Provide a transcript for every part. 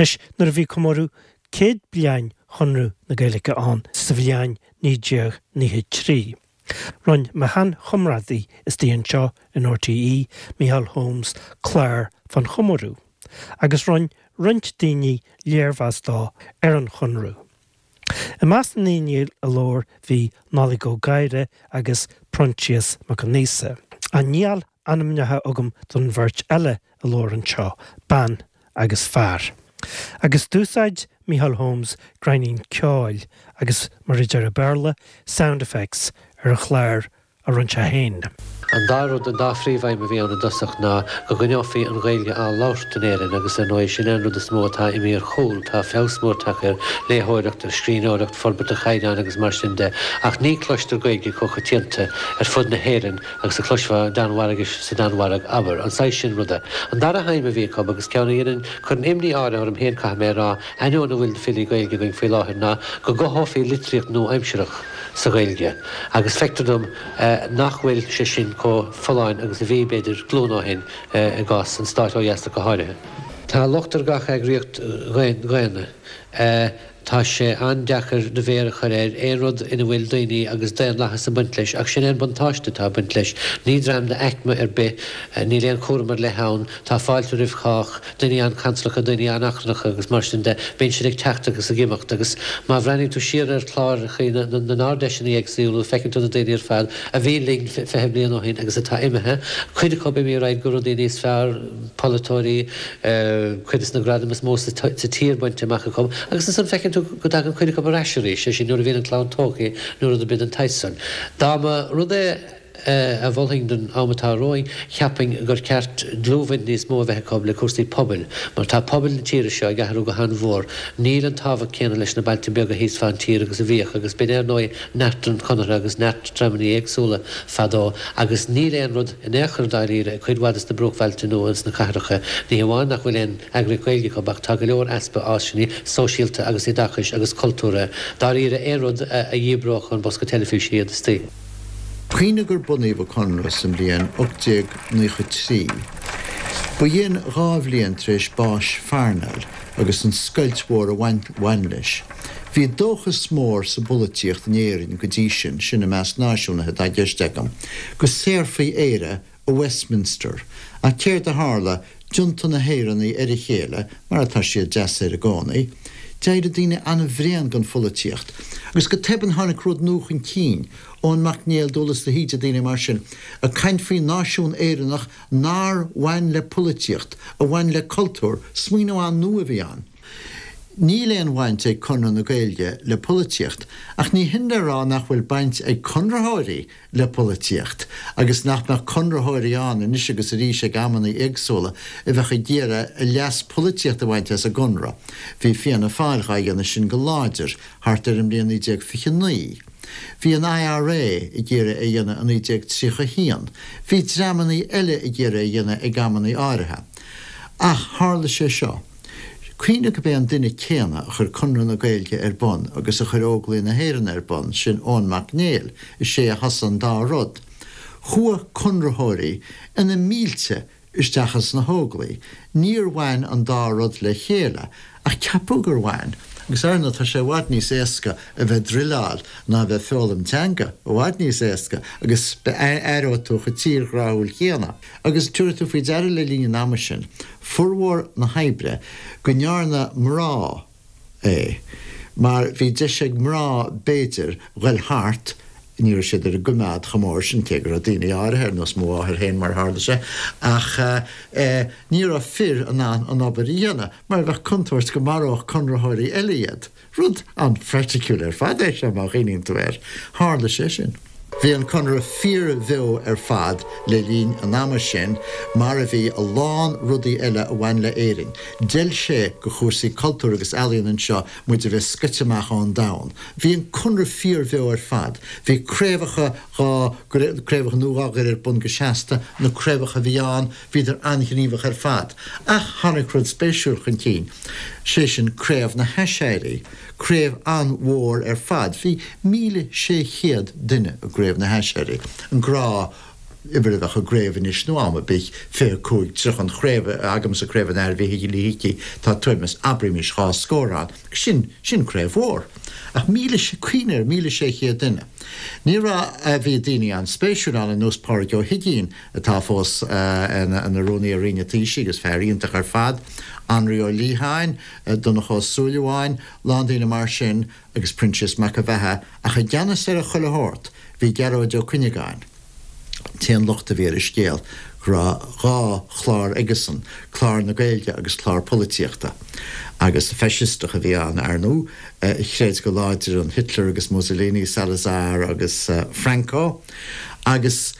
Anois, nuair a bhí comóradh 100 bliain Chonradh na Gaeilge ann sa bhliain 1993, Roinn mo shean-chomrádaí istigh anseo in RTÉ, Micheál Holmes, clár fán chomóradh, agus roinn roinnt daoine léirmheas dó ar an Chonradh. I measc na ndaoine a labhair bhí Nollaig Ó Gadhra agus Proinsias Mac Con Aosa. Níl ainmneacha agam don bheirt eile a labhair anseo, bean agus fear. Agus d'úsáid Micheál Holmes greimín ceoil agus, mar a deir an Béarla, sound effects ar an chlár a rinne sé féin. An dá rud, an dá phríomhaidhm a bhí ann i dtosach ná go gcoinneofaí an Ghaeilge á labhairt in Éirinn agus ar ndóigh sin é an rud is mó atá imithe ar chúl. Tá feabhas mór tagtha ar léitheoireacht, ar scríbhneoireacht, forbairt an chaighdeáin agus mar sin de ach ní cloistear Gaeilge chomh coitianta ar fud na hÉireann agus a chloisfeá Danmhairgis sa Danmhairg, abair. An saghas sin ruda. An dara haidhm a bhí acu, agus ceann a dhéanann, cuireann imní áirithe orm féin, caithfidh mé a rá, ainneoin a bhfuil de filí Gaeilge againn faoi láthair, ná go gcothófaí litríocht nua-aimsearach sa Ghaeilge. Agus feictear dom nach bhfuil sé sin chomh folláin agus a bhí, b'fhéidir, glúin ó shin, i gcás an stáit ó dheas ach go háirithe. Tá locht ar gach eagraíocht dhaonna. Tá sé an-deacair do mhéar a chur ar aon rud ina bhfuil daoine agus daonlathas ag baint leis, ach sin é an buntáiste atá ag baint leis. Ní dream d'aicme ar bith, níl aon chúram ar leith ann, tá fáilte roimh chách, daoine an-chansalacha, daoine an-achrannacha agus mar sin de, bíonn siad ag teacht agus ag imeacht agus má bhreathnaíonn tú siar ar chláracha na nArd-Fheiseanna éagsúla feiceann tú na daoine ar fad a bhí linn 20 bliain ó shin agus atá imithe, cuid acu imithe ar aghaidh go rudaí níos fearr, polaiteoirí, cuid de na gradaim is mó sa tír bainte amach acu, agus ansan feiceann tú go dtagann cuid acu ar ais arís, sé sin nuair a bhíonn an chlann tógtha nó rud ar bith den tsaghas san. Dá mba rud é a mholfainn don am atá romhainn, cheapfainn gur ceart dlúthbhaint níos mó a bheith acu le cúrsaí pobail, mar tá pobail na tíre seo ag athrú go han-mhór. Níl an tábhacht céanna leis na bailte beaga thíos fán tír agus a bhíodh, agus b'in ar ndóigh neart an Chonartha agus neart dreamanna éagsúla fadó, agus níl aon rud in aon chor dáiríre ag cuid mhaith de na bruachbhailte nó ins na cathracha. Ní hamháin nach bhfuil aon eagraíocht Ghaeilge acu ach tá go leor easpa áiseanna sóisialta agus oideachais agus cultúrtha. Dáiríre aon rud a dhíbreodh ón bosca teilifíse iad istigh. Cuimhnigh gur bunaíodh an Conradh sa mbliain 1893. Ba shin 2 bhliain tar éis báis Pharnell agus an scoilt mhór a bhain leis. Bhí dóchas mór sa bpolaitíocht in Éirinn go dtí sin, sin i measc náisiúnaithe atá i gceist agam, go saorfaí Éire ó Westminster. Ach céard a tharla? D'iontaigh na hÉireannaigh ar a chéile, mar atá siad deasaoir i gcónaí. D'éirigh daoine an-bhréan den pholaitíocht. Agus go tobann tháinig rud nua chun cinn, Eoin Mac Néill, Dúghlas de hÍde, daoine mar sin, ag caint faoi náisiún Éireannach nár bhain le polaitíocht, a bhain le cultúr. Smaoineamh an-nua a bhí ann. Níl aon bhaint ag Conradh na Gaeilge le polaitíocht, ach ní hin le rá nach bhfuil baint ag conraitheoirí le polaitíocht, agus nach mbeadh conraitheoirí ann anois agus arís ag amanna éagsúla a bheadh ag iarraidh a leas polaitíochta a bhaint as an gConradh. Bhí Fianna Fáil dhá dhéanamh sin go láidir thart ar an mbliain 1929. Bhí an IRA ag iarraidh é a dhéanamh i 1931. Bhí dreamanna eile ag iarraidh é a dhéanamh ag amanna áirithe. Ach tharla sé seo. Cuimhnigh gurb é an duine céanna a chuir Conradh na Gaeilge ar bun agus a chuir Óglaigh na hÉireann ar bun, sin Eoin Mac Néill, is é a thosaigh an dá rud. Chuaigh Conraitheoirí ina mílte isteach ins na hÓglaigh. Níor bhain an dá rud le chéile, ach ceapadh gur bhain. Agus ar ndóigh tá sé i bhfad níos éasca a bheith ag druileáil ná a bheith ag foghlaim teanga, i bhfad níos éasca, agus éireoidh tú chomh tírghráúil céanna. Agus tabharfaidh tú faoi deara le linn an ama sin, formhór na hoibre, go ndearna mná é, mar bhí deis ag mná, b'fhéidir, ghoil thart, ní raibh siad ar an gcoimeád chomh mór sin, cé go raibh daoine áirithe, ar nós mo mháthair féin mar a tharla sé, ach eh ní raibh fir in ann an obair a dhéanamh, mar bheadh contúirt go maródh conraitheoirí eile iad. Rud an-phraiticiúil ar fad é seo má chuimhníonn tú air. Tharla sé sin. Bhí an Conradh fíorbheo ar fad le linn an ama sin, mar a bhí a lán rudaí eile a bhain le Éirinn. D'fheil sé go chúrsaí cultúir agus ealaíon anseo muid a bheith scoite amach ón domhan. Bhí an Conradh fíorbheo ar fad. Bhí craobhacha dhá craobhacha nua dhá gcur ar bun go seasta, na craobhacha a bhí ann, Bhíodar an-ghníomhach ar fad. Ach tháinig rud spéisiúil chun cinn, sé sin Craobh na hAiséirí. Craobh an-mhór ar fad. Bhí 1,600 duine i gCraobh na hAiséirí. An grá. uimhir a bheadh i gcraobh anois nó am ar bith, 25, 30, an chraobh agamsa, Craobh an Athar Mhíchíl Uí hIcí, tá tuairim is, abraimis, dhá scór ann. Sin, sin craobh mhór. Ach 1,000, cuimhnigh air, 1,600 duine. Ní raibh, bhí daoine an-spéisiúil ann ar nós Pádraig Ó hUiginn, atá fós ina Rúnaí ar Roinn an Taoisigh agus fear iontach ar fad, Anraí Ó Liatháin, Donncha Ó Súilleabháin, lán daoine mar sin agus Proinsias Mac an Bheatha, ach i gceannas ar chuile shórt bhí Gearóid Ó Cuinneagáin. T-aon locht a bhí ar an scéal go raibh dhá chlár aigesan, clár na Gaeilge agus clár polaitíochta. Agus faisisteach a bhí ann, ar ndóigh, a chreid go láidir in Hitler agus Mussolini, Salazar agus Franco. Agus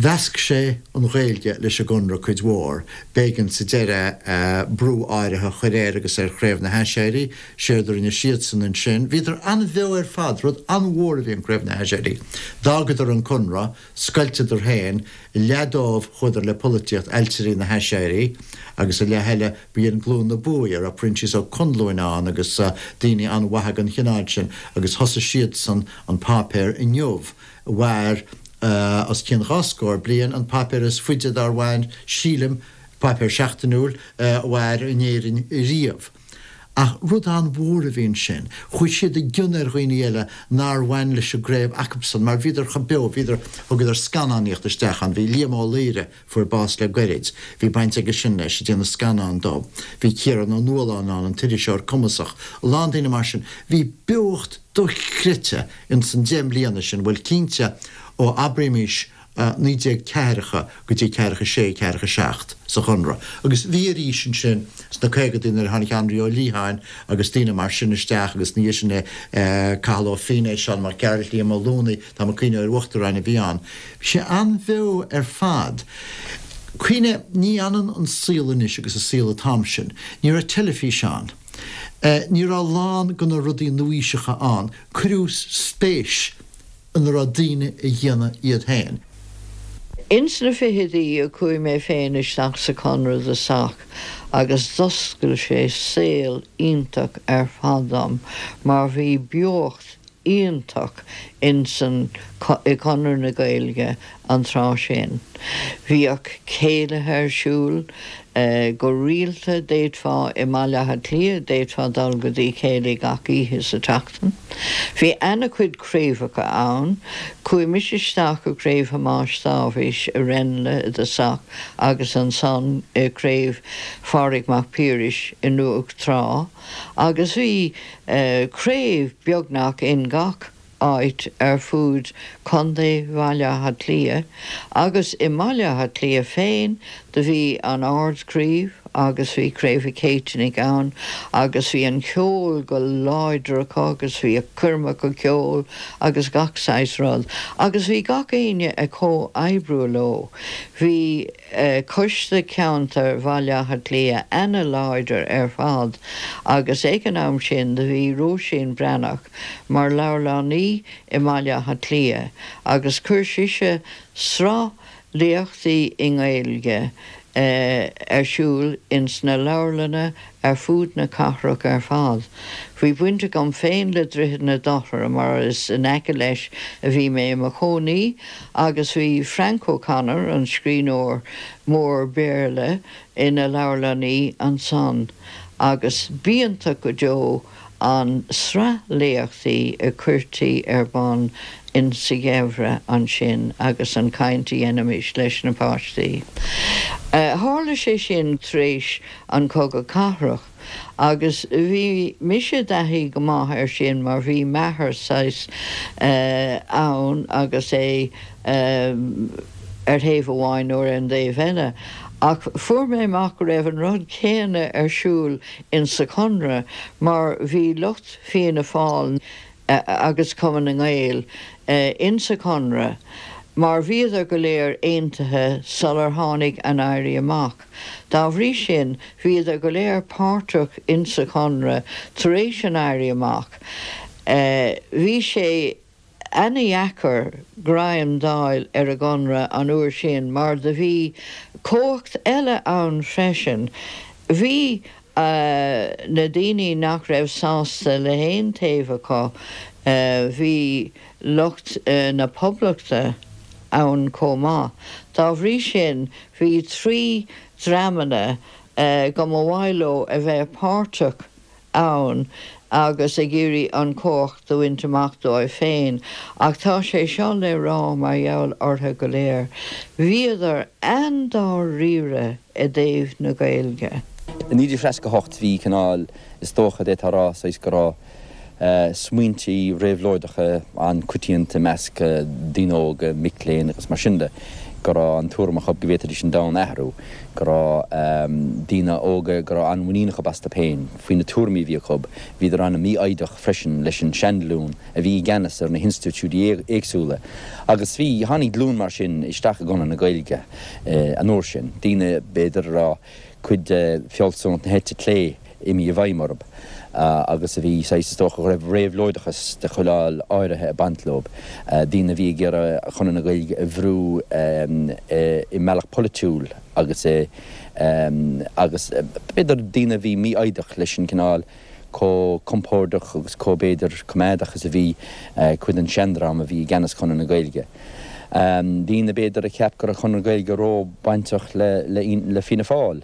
mheasc sé an Ghaeilge leis an gConradh cuid mhór. B'éigean sa deireadh brú áirithe a chur air agus ar Chraobh na hAiséirí. Séard a rinne siadsan ansin, bhíodar an-bheo ar fad, rud an-mhór a bhí in Craobh na hAiséirí. D'fhágadar an Conradh, scoilteadar féin, leath dóibh chuadar le polaitíocht, Ailtirí na hAiséirí, agus an leath eile, b'in Glúin na Buaidhe, a raibh Proinsias Ó Conluain ann agus daoine an-mhaithe den chineál sin, agus thosaigh siadsan an páipéar Inniu, a mhair os cionn dhá scór bliain, an páipéar is faide dár mhair, sílim, páipéar seachtainiúil, a mhair in Éirinn riamh. Ach rud an-mhór a bhí ansin. Chuaigh siad i gcion ar dhaoine eile nár bhain leis an gcraobh acubsan mar bhíodar chomh beo, bhíodar, thugadar scannánaíocht isteach ann, bhí Liam Ó Laoire, fuair bás le goirid, bhí baint aige sin leis, ag déanamh scannán dó. Bhí Ciarán Ó Nualláin ann, an t-iriseoir cumasach, a lán daoine mar sin. Bhí beocht dochreidte ins an deich mbliana sin, bhuel cinnte ó abraímís 19 ceathracha go dtí ceathracha sé, ceathracha seacht sa Chonradh. Agus bhí arís ansin sna caogaidí nuair a tháinig Anraí Ó Liatháin agus daoine mar sin isteach agus ina dhiaidh sin Cathal Ó Feinneadha, Seán Mac Gearailt, Liam Ó Luanaigh, tá mé ag cuimhneamh ar uachtaráin a bhí ann. Bhí sé an-bheo ar fad. Cuimhnigh, ní ionann an saol anois agus an saol an t-am sin. Ní raibh teilifís ann. Ní raibh a lán de na rudaí nuaaoiseacha ann. Cuireadh spéis ina raibh daoine a dhéanamh iad féin. Ins na fichidí a chuaigh mé féin isteach sa Chonradh i dtosach agus d'oscail sé saol iontach ar fad dom mar bhí beocht iontach ins an i gConradh na Gaeilge an tráth sin. Bhíodh céilithe ar siúl go rialta, d'fhéadfá i mBaile Átha Cliath, d'fhéadfá dul go dtí céilí gach oíche sa tseachtain. Bhí ana-chuid craobhacha ann. Chuaigh mise isteach i gCraobh Thomáis Dáibhís i Ranelagh i dtosach agus ansan i gCraobh Phádraig Mac Piarais i nDumhach Trá agus bhí craobh beagnach in gach áit ar fud Contae Bhaile Átha Cliath agus i mBaile Átha Cliath féin do bhí an Ard-Chraobh agus bhí Craobh an Chéitinnigh ann agus bhí an ceol go láidir acu agus bhíodh coirmeacha ceoil agus gach saghas rud agus bhí gach éinne ag comhoibriú leo. Bhí Coiste Ceantair Bhaile Átha Cliath ana-láidir ar fad agus ag an am sin do bhí Róisín Breathnach mar leabharlannaí i mBaile Átha Cliath agus chuir sise sraith léachtaí i nGaeilge ar siúl ins na leabharlanna ar fud na cathrach ar fad. Bhí baint agam féin le Droichead na Dothra mar is in aice leis a bhí mé i mo chónaí agus bhí Frank O'Connor, an scríbhneoir mór Béarla, ina leabharlannaí ansan agus b'iontach go deo an sraith léachtaí a chuirtí ar bun in sa gheimhreadh ansin agus an chaint a dhéanaimis leis na páistí. Tharla sé sin tar éis an Chogadh Cathrach agus bhí mise i dtaithí go maith air sin mar bhí m'athair saghas ann agus é ar thaobh amháin nó ar an dtaobh eile ach fuair mé amach go raibh an rud céanna ar siúl in sa Chonradh mar bhí lucht Fianna Fáil agus Cumann na nGael in sa Chonradh mar bhíodar go léir aontaithe sular tháinig an Éirí Amach. Dá bhrí sin bhíodar go léir páirteach in sa Chonradh tar éis an Éirí Amach. Bhí sé ana-dheacair greim d'fháil ar an gConradh an uair sin mar do bhí cumhacht eile ann freisin. Bhí na daoine nach raibh sásta le haon taobh acu, bhí lucht na Poblachta. ann chomh maith. Dá bhrí sin, bhí 3 dreamanna go mba mhaith leo a bheith páirteach ann agus ag iarraidh an chumhacht a bhaint amach dóibh féin. Ach tá sé seo le rá mar gheall orthu go léir, bhíodar an-dáiríre i dtaobh na Gaeilge. I 1968 bhí cineál, is dócha, d'fhéadfá a rá, saghas go raibh smaointí réabhlóideacha an-coitianta i measc daoine óga, mic léinn agus mar sin de, go raibh an tuairim acu go bhféadfaidís an domhan a athrú, go raibh daoine óga go raibh an-mhuinín acu astu féin faoi na tuairimí a bhí acu. Bhíodar an-mhífhoighdeach freisin leis an seanghlúin a bhí i gceannas ar na hinstitiúidí éagsúla agus bhí, tháinig glúin mar sin isteach i gConradh na Gaeilge an uair sin, daoine b'fhéidir a raibh cuid de fealsúnacht na heite clé imithe i bhfeidhm orthu agus a bhí saghas, is dócha, go raibh réabhlóideachas de chineál áirithe ag baint leo, daoine a bhí ag iarraidh Conradh na Gaeilge a bhrú i mbealach polaitiúil agus i agus b'fhéidir daoine a bhí mífhoighdeach leis an cineál chomh compordach agus chomh b'fhéidir coimeádach is a bhí cuid den seandream a bhí i gceannas Chonradh na Gaeilge. Daoine b'fhéidir a cheap go raibh Conradh na Gaeilge ró-bhainteach le Fianna Fáil.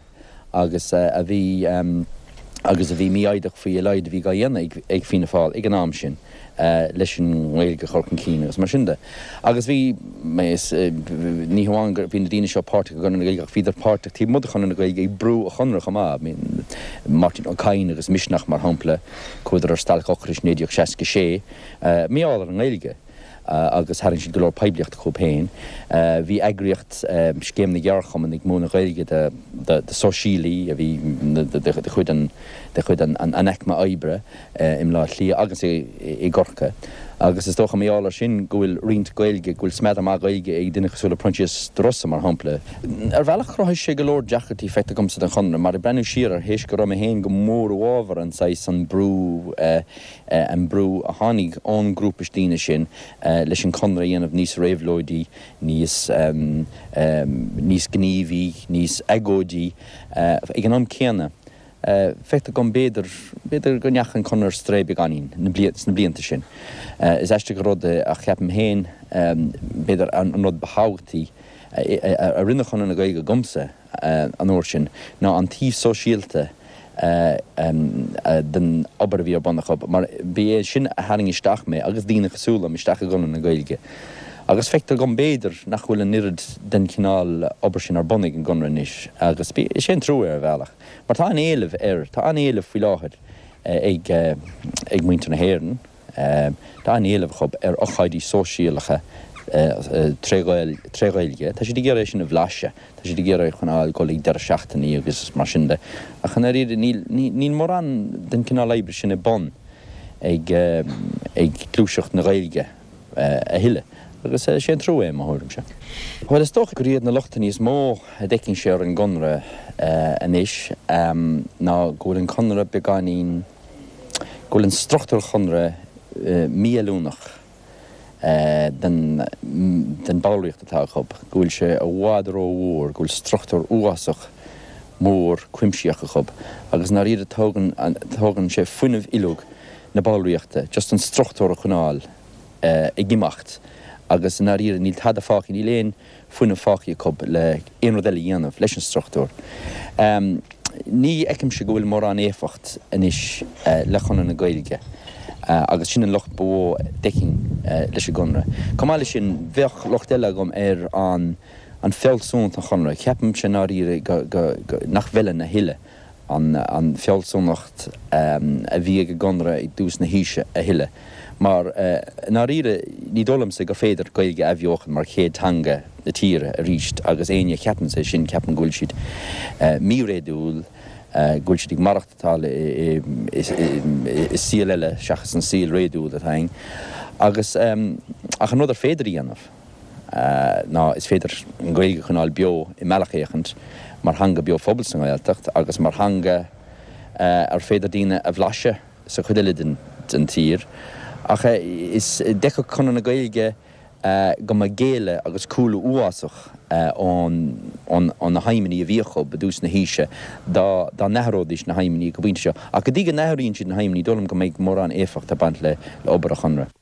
agus a bhí agus a bhí mífhoighdeach faoi a laghad a bhí dhá dhéanamh ag Fianna Fáil ag an am sin leis an nGaeilge a chur chun cinn agus mar sin de. Agus bhí, ní hamháin go bhí na daoine seo páirteach i gConradh na Gaeilge ach bhíodar páirteach taobh amuigh de Chonradh na Gaeilge ag brú an Chonradh chomh maith. Máirtín Ó Cadhain agus Misneach mar shampla, chuadar ar stailc ocrais 1966 mar gheall ar an nGaeilge. agus tharraing siad go leor poiblíochta chucu féin. Bhí eagraíocht Scéim na gCeardchumann ag múineadh Gaeilge do sóisialaí a bhí de chuid an de chuid an aicme oibre i mBleá Cliath agus i gCorcaigh agus is dócha mar gheall air sin go bhfuil roinnt Gaeilge, go bhfuil smeadar maith Gaeilge ag duine cosúil le Proinsias De Rossa mar shampla. Ar bhealach chruthaigh sé go leor deacrachtaí feictear dhomsa don Chonradh mar ag breathnú siar air théis go raibh mé féin go mór i bhfabhar an saghas an brú an brú a tháinig ón ngrúpa daoine sin leis an Conradh a dhéanamh níos réabhlóidí, níos níos gníomhaí, níos agóidí. Ag an am céanna, feictear dom b'fhéidir, b'fhéidir go ndeachaigh an Conradh ar strae beagáinín sna blianta sin. Is aisteach an rud é ach ceapaim féin, b'fhéidir an rud ba thábhachtaí a rinne Conradh na Gaeilge dhomsa, an uair sin ná an taobh sóisialta den obair a bhí ar bun acu, mar ba é sin a tharraing isteach mé agus daoine cosúil liom isteach i gConradh na Gaeilge. Agus feictear dhom, b'fhéidir, nach bhfuil an oiread den chineál obair sin ar bun ag an gConradh anois, agus is é an trua é ar bhealach, mar tá an-éileamh air, tá an-éileamh faoi láthair ag muintir na hÉireann. Tá an-éileamh acu ar ocáidí sóisialacha tré Ghaeilge. Tá siad ag iarraidh é sin a bhlaiseadh. Tá siad ag iarraidh cineál dul ag deireadh seachtainí agus mar sin de. Ach i ndáiríre níl mórán den chineál oibre sin ar bun ag gluaiseacht na Gaeilge a thuilleadh. Agus is é an trua é, i mo thuairimse. Bhuel, is dócha gur iad na lochtanna is mó a d'fheicinnse ar an gConradh anois ná go bhfuil an Conradh beagáinín, go bhfuil an struchtúr Chonradh mífheiliúnach den bhallraíocht atá acu, go bhfuil sé i bhfad rómhór, go bhfuil struchtúr uafásach mór cuimsitheach acu agus i ndáiríre tógann tógann sé fuinneamh uilig na ballraíochta just an struchtúr a choinneáil ag imeacht agus i ndáiríre níl tada fágtha, níl aon fuinneamh fágtha acu le aon rud eile a dhéanamh leis an struchtúr. Ní fheicimse go bhfuil mórán éifeacht anois le Conradh na Gaeilge agus sin an locht ba mhó a d'fheicfinn leis an gConradh. Chomh maith leis sin, bheadh locht eile agam ar an an fealsúnacht an Chonradh. Ceapaimse i ndáiríre nach bhfeileann a thuilleadh an fealsúnacht a bhí ag an gConradh i dtús na haoise a thuilleadh. Mar, i ndáiríre, ní dóigh liomsa gur féidir Gaeilge a athbheochan mar chéad teanga na tíre arís agus éinne a cheapanns é sin, ceapaim go bhfuil siad míréadúil, go bhfuil siad ag maireachtáil i saol eile seachas an saol réadúil atá againn. Agus, ach an rud ar féidir a dhéanamh. ná is féidir an Ghaeilge a choinneáil beo i mbealach éicint mar theanga beo phobail sa nGaeltacht agus mar theanga ar féidir daoine a bhlaiseadh sa chuid eile den tír. Ach is d'fheicfeadh Conradh na Gaeilge go mba géilleadh agus cúlú uafásach ó na haidhmeanna a bhí acu i dtús na haoise dá n-athróidís na haidhmeanna go pointe seo. Ach go dtí go n-athraíonn siad na haidhmeanna ní dóigh liom go mbeidh mórán éifeacht ag baint le obair an Chonradh.